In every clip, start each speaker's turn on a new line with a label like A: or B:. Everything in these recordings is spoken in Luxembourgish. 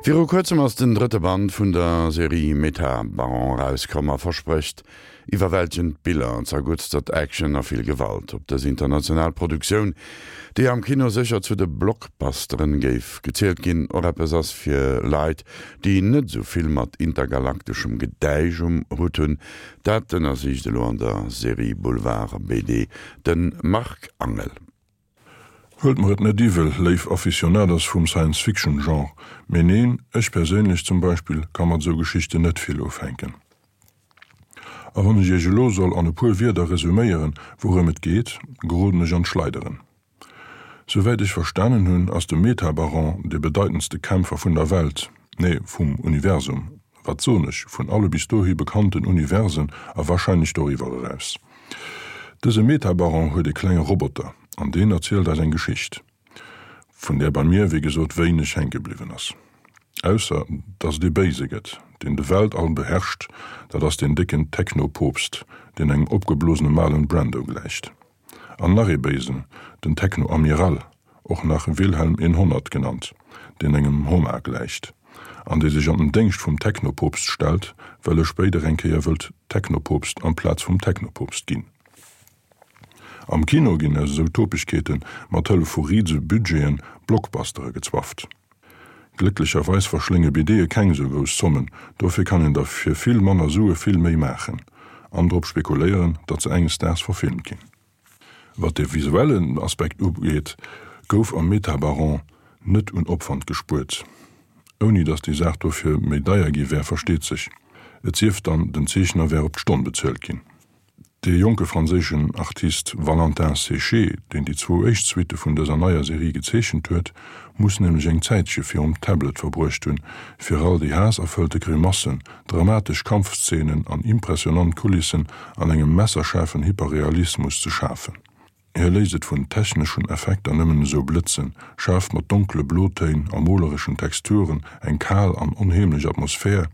A: Viru kuerzem ass den drëtte Band vun der Serie Meta-Baron erauskomm a versprécht iwwerwältegend Biller, zerguttstert Action a vill Gewalt. Ob dës international Produktioun, déi am Kino sécher zu de Blockbusteren géif gezielt ginn, och eppes ass fir Leit, déi net esou vill mat intergalakteschem Gedäisch um Hutt hunn, dat ënnersicht elo an der Serie Boulevard BD de Marc Angel.
B: Huelt mer et net iwwel, léif Aficionados vum Science-Fiction-Genre, mee neen, ech perséinlech zum Beispill ka mat esou Geschichten net vill ufänken. A wann ech iech elo soll an e puer Wierder resuméieren, wourëm et geet, geroden ech an d'Schleideren. Souwäit ech verstanen hunn, ass de Metabaron dee bedeitendste Kämpfer vun der Welt, nee, vum Universum, wat soen ech, vun alle bis dohi bekannten Universen a warscheinlech doriwwer eraus. Dëse Metabaron huet e klenge Roboter an deen erzielt eis eng Geschicht, vun där bei mir wéi gesot wéineg hänke bliwwen ass. Ausser dass et ee Béise gëtt, deen de Weltall beherrscht, dat ass deen décken Techno-Poopst, deen engem opgeblosene Marlon Brando gläicht. An nach ee Béisen, den Techno-Amiral, och nach Wilhelm 100 genannt, deen engem Homar gläicht, an dee sech an den Déngscht vum Techno-Poopst stellt, well e spéider eng Kéier wëllt Techno-Poopst amplaz vum Techno-Poopst ginn. Am Kino ginn aus esou Topegkeete mat Hëllef vu rise Budgeten Blockbustere gezwafft. Glécklecherweis verschlénge BDe keng esou grouss Zommen, dofir kann een der fir vill manner Sue vill méi maachen an drop spekuléieren, datt se enges Daags verfilmt ginn. Wat de visuellen Aspekt ugeet, gouf am Metabaron net un Opwand gespuert. Ouni datt déi Saach dofir méi deier gi wär, versteet sech. Et sief dann, den Zeechner wär op d'Stonn bezuelt ginn. Dee jonke franséischen Artist Valentin Séché, deen déi zwou éischt Suitte vun dëser neier Serie gezeechent huet, muss nämlech eng Zäitche virum Tablet verbruecht hunn, fir all déi haasserfëllte Grimassen, dramatesch Kampfszenen an impressionant Kulissen an engem messerschaarfen Hyperrealismus ze schafen. Hie léisst et vun techneschen Effekter nëmmen esou blëtzen, schaaft mat donkele Blotéin a molereschen Texturen eng kal an onheemlech Atmosphär,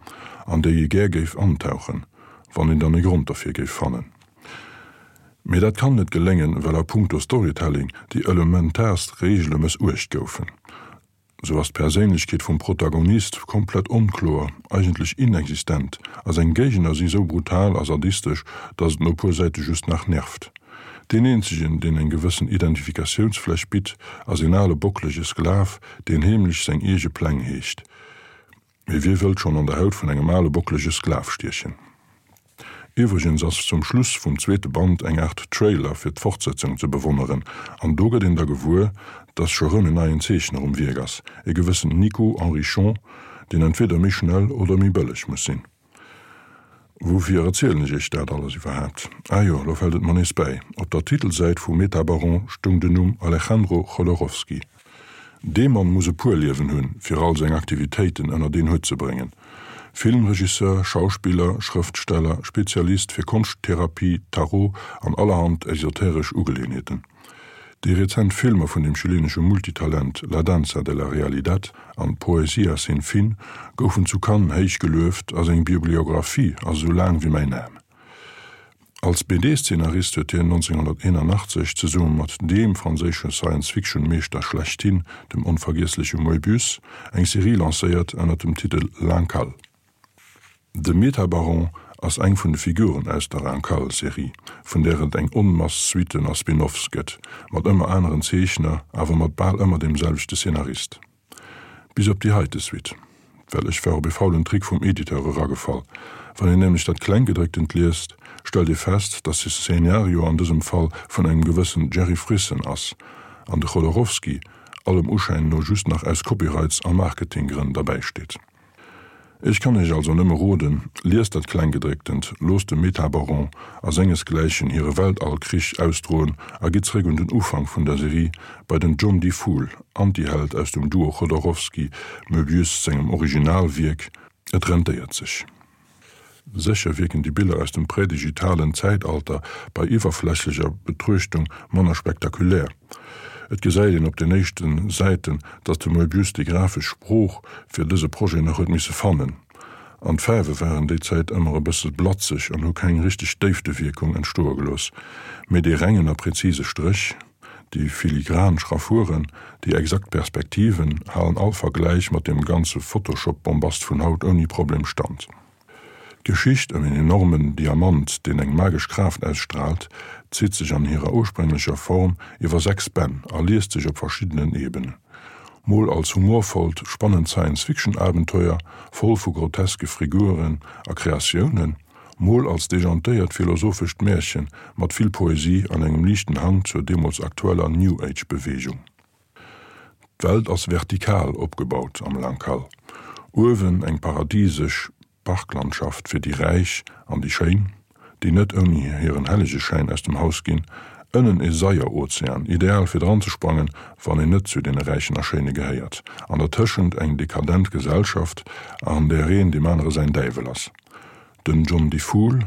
B: an déi ee gär géif antauchen, wann een dann e Grond derfir géif fannen. Mee dat kann net geléngen, well a punkto Storytelling déi elementaarst Reegele mëssuecht goufen. Sou ass d'Perséinlechkeet vum Protagonist komplett onkloer, eigentlech inexistent, a seng Géigner si sou brutal a sadistesch, dass et no puer Säite just nach nervt. Deen eenzegen, deen eng gewëssen Identifikatiounsfläch bitt, ass een ale bocklege Sklav, deen heemlech seng eege Pläng heegt. Mee wie wëllt schonn an der Haut vun engem ale bocklege Sklav stiechen? Iwwregens ass zum Schluss vum zweete Band eng Aart Trailer fir d'Fortsetzung ze bewonneren, an do gëtt een da gewuer, dass scho rëm en neien Zeechner um Wierk ass, e gewëssen Nico Henrichon, deen entweder méi schnell oder méi bëlleg muss sinn. Woufir erzielen ech iech dat alles iwwerhaapt? Ah jo, lo fält et mer nees bäi, op der Titelsäit vu Metabaron stoung den Numm Alejandro Jodorowsky. Dee Mann muss e puer Liewen hunn, fir all seng Aktivitéiten ënnert een Hutt ze bréngen. Filmregisseur, Schauspiller, Schrëftsteller, Spezialist fir Konschttherapie, Tarot an allerhand esoteresch Ugeleeënheeten. Déi rezent Filmer vun dem chilenesche Multitalent La danza de la realidad an Poesia sin fin goufen zu Cannes héich gelueft a seng Bibliographie ass esou laang wéi mäin Aarm. Als BD-Szenarist huet hien 1981 zesumme mat deem franséische Science-Fiction-Meeschter schlechthin, dem onvergiessleche Moebius, eng Serie lancéiert ënner dem Titel L'Incal. De Metabaron ass eng vun de Figuren aus der Incal-Serie, vun där et eng Onmass Suitten a Spin-offs gëtt, mat ëmmer aneren Zeechner, awer mat bal ëmmer deem selwechte Szenarist. Bis op déi heite Suite. Well ech war op e faulen Trick vum Editeur eragefall. Wann een nämlech dat Klenggedrécktent liest, stellt ee fest, dass de Szenario an dësem Fall vun engem gewëssen Jerry Frissen ass, an de Jodorowsky allem Uschäin no just nach aus Copyrights a Marketinggrënn derbäi steet. Ech kann iech also nëmme roden, liest dat Klenggedrécktent, loosst dem Metabaron a sengesgläichen hire Weltallkrich ausdroen a gitt zréck un den Ufank vun der Serie, bei den John Difool, Antiheld aus dem Duo Jodorowsky, Möbius sengem Originalwierk. Et rentéiert sech. Sécher wierken déi Biller aus dem prädigitalen Zäitalter bei iwwerflächlecher Betruechtung manner spektakulär. Et gesäit een op den éischte Säiten, datt de Moebius déi grafesch Sprooch fir dëse Projet nach huet misse fannen. An d'Faarwe waren déi Zäit ëmmer e bësse blatzeg an hu keng richteg Déiftewierkung entstoe gelooss. Mee dee rengen a präzise Stréch? Déi filigran Schraffuren, déi exakt Perspektiven halen all Vergläich mat deem ganze Photoshop-Bombast vun haut ouni Problem stand. D'Geschicht ëm een enormen Diamant, deen eng magesch Kraaft ausstraalt, zitt sech an hirer ursprénglecher Form iwwer 6 Bänn a liest sech op verschiddenen Ebenen. Mol als humorvollt, spannend Science-Fiction-Abenteuer, voll vu groteske Friguren a Kreatiounen, mol als dejantéiert philosophescht Märchen mat vill Poesie an engem liichten Hang zur deemools aktueller New Age-Beweegung. D'Welt ass vertikal opgebaut am Lankal. Uewen eng paradisesch Parklandschaft fir déi Räich an déi Schéin, déi net ouni hiren Hellegeschäin aus dem Haus ginn, ënnen e Saierozean, ideal fir dranzesprangen, wann een net zu deene Räichen a Schéine gehéiert, an dertëschent eng dekadent Gesellschaft, an där een deem anere säin Däiwel ass. Den John Difool,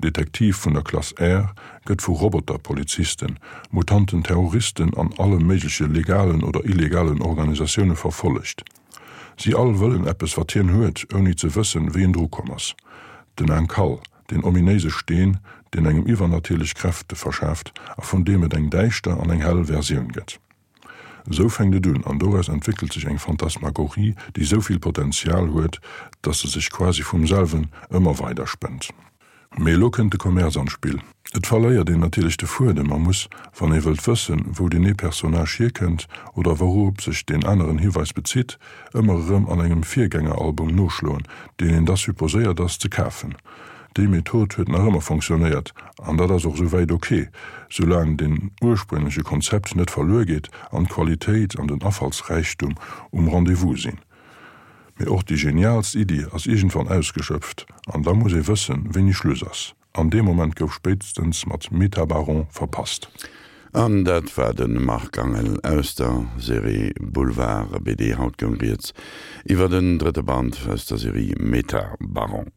B: Detektiv vun der Klass R, gëtt vu Roboter-Polizisten, mutanten Terroristen an alle méigleche legalen oder illegalen Organisatioune verfollegt. Si all wëllen eppes wat hien huet, ouni ze wëssen, wéi en dru komm ass. Den Ankal, deen ominéise Steen, deen engem iwwernatierlech Kräfte verschaaft a vun deem et eng däischter an eng hell Versioun gëtt. Esou fänkt et un an doraus entwéckelt sech eng Phantasmagorie, déi esou vill Potenzial huet, dass se sech quasi vum selwen ëmmer weider spënnt. Mee elo kënnt de Commerce an d'Spill. Et verléiert een natierlech de Fuedem a muss, wann ee wëllt wëssen, wou deen ee Personnage hierkënnt oder wouroop sech deen aneren Hiweis bezitt, ëmmer erëm an engem Virgängeralbum noschloen, deen een da supposéiert ass ze kafen. Déi Method huet nach ëmmer fonctionnéiert an dat ass och souwäit ok, soulaang den urspréngleche Konzept net verluer geet an d'Qualitéit an den Afallsräichtum um Rendez-vous sinn. Mee och déi geniaalst Iddi ass iergendwann ausgeschöpft an da muss ee wëssen, wéini Schluss ass. An dee Moment gouf spéitstens mat Metabaron verpasst.
A: An dat war de Marc Angel aus der Serie Boulevard BD. Haut goung rieds iwwer den drëtte Band aus der Serie Metabaron.